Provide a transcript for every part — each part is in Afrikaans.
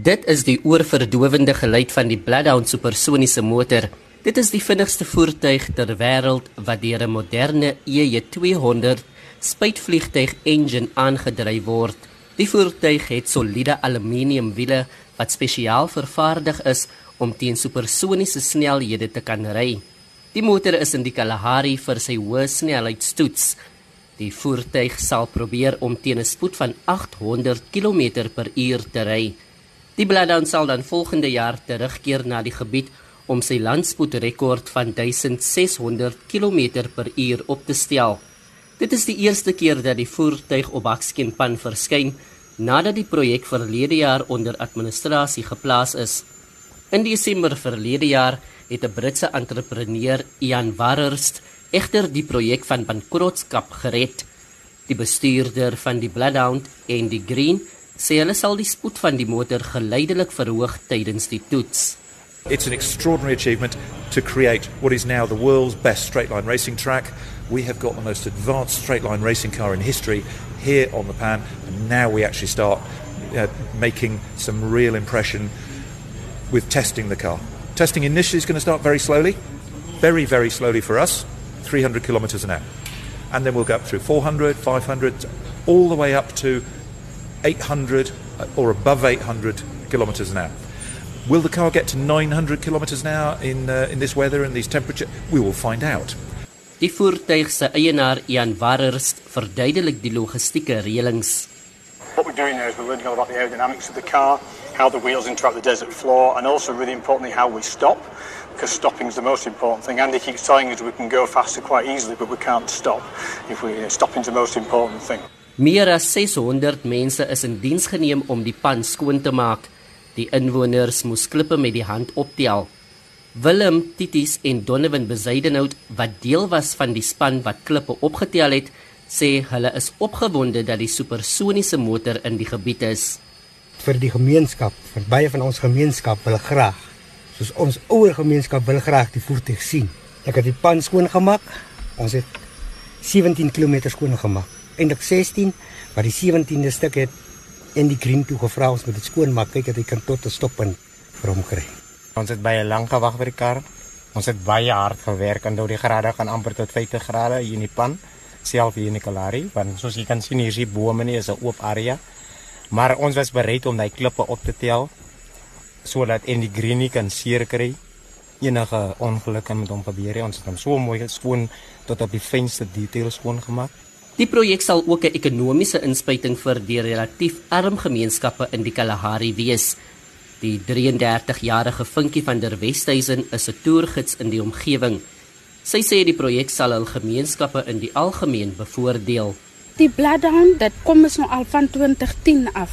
Dit is die oorverdowende geluid van die Bloodhound supersoniese motor. Dit is die vinnigste voertuig ter wêreld wat deur 'n moderne EJ200 spuitvliegtuig engine aangedryf word. Die voertuig het soliede aluminiumwiele wat spesiaal vervaardig is om teen supersoniese snelhede te kan ry. Die motor is in die Kalahari vir sy hoë snelheidstoets. Die voertuig sal probeer om teen 'n spoed van 800 km/h te ry. Die Bloodhound sal dan volgende jaar terugkeer na die gebied om sy landspoedrekord van 1600 km/h op te stel. Dit is die eerste keer dat die voertuig op Bakskenpan verskyn nadat die projek verlede jaar onder administrasie geplaas is. In Desember verlede jaar het 'n Britse entrepreneur, Ian Warhurst, egter die projek van bankrotskap gered. Die bestuurder van die Bloodhound, Andy Green, sê hulle sal die spoed van die motor geleidelik verhoog tydens die toets. It's an extraordinary achievement to create what is now the world's best straight-line racing track. We have got the most advanced straight-line racing car in history here on the Pan, and now we actually start making some real impression with testing the car. Testing initially is going to start very slowly, very, very slowly for us, 300 kilometers an hour. And then we'll go up through 400, 500, all the way up to 800 or above 800 kilometers an hour. Will the car get to 900 kilometers an hour in this weather and these temperatures? We will find out. Die voertuig se eienaar Ian Warhurst verduidelik die logistieke reëlings. What we're doing now is we're learning all about the aerodynamics of the car, how the wheels interact with the desert floor, and also really importantly how we stop, because stopping is the most important thing. Andy keeps telling us we can go faster quite easily, but we can't stop. Stopping is the most important thing. Meer as 600 mense is in diens geneem om die pan skoon te maak. Die inwoners moes klippe met die hand optel. Willem, Titis en Donovan Bezuidenhout, wat deel was van die span wat klippe opgetel het, sê hulle is opgewonde dat die supersoniese motor in die gebied is. Vir die gemeenskap, vir baie van ons gemeenskap wil graag, soos ons ouer gemeenskap wil graag die voertuig sien. Ek het die pan skoon gemaak. Ons het 17 km skoon gemaak. Eindelik 16, maar die 17de stuk het in die Green toe gevra ons moet dit skoon maak, kyk dat hy kan tot 'n stoppunt vir hom kry. Ons het baie lank gewag vir die kar. Ons het baie hard gewerk en die grade gaan amper tot 50 grade hier in die pan, self hier in die Kalahari, want soos jy kan sien hier is die bome nie, is 'n oop area. Maar ons was bereid om die klippe op te tel sodat in die Green nie kan seer kry. Enige ongeluk kan met hom gebeur. Ons het hom so mooi skoon tot op die fynste details skoon gemaak. Die projek sal ook 'n ekonomiese inspuiting vir die relatief arm gemeenskappe in die Kalahari wees. Die 33-jarige Vinkie van der Westhuizen is 'n toergids in die omgewing. Sy sê die projek sal hul gemeenskappe in die algemeen bevoordeel. Die Bloodhound, dit kom ons nou al van 2010 af.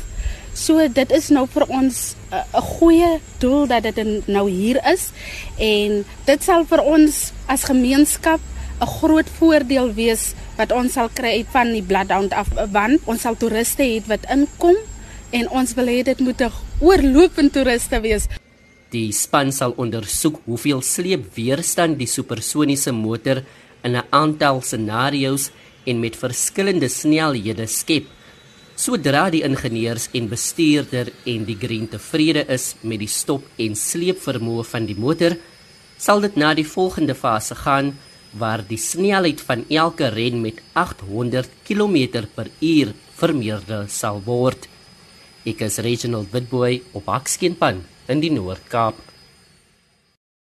So dit is nou vir ons 'n goeie doel dat dit nou hier is, en dit sal vir ons as gemeenskap 'n groot voordeel wees wat ons sal kry van die Bloodhound af, want ons sal toeriste hê wat inkom en ons wil hê dit moet 'n oorlopende toeriste wees. Die span sal ondersoek hoeveel sleepweerstand die supersoniese motor in 'n aantal scenario's en met verskillende snelhede skep. Sodra die ingenieurs en bestuurder en die Green tevrede is met die stop en sleepvermoë van die motor, sal dit na die volgende fase gaan waar die snelheid van elke ren met 800 km/h vermeerder sal word. Ek is Reginald Witbooi op Bakskenpan in die Noord-Kaap.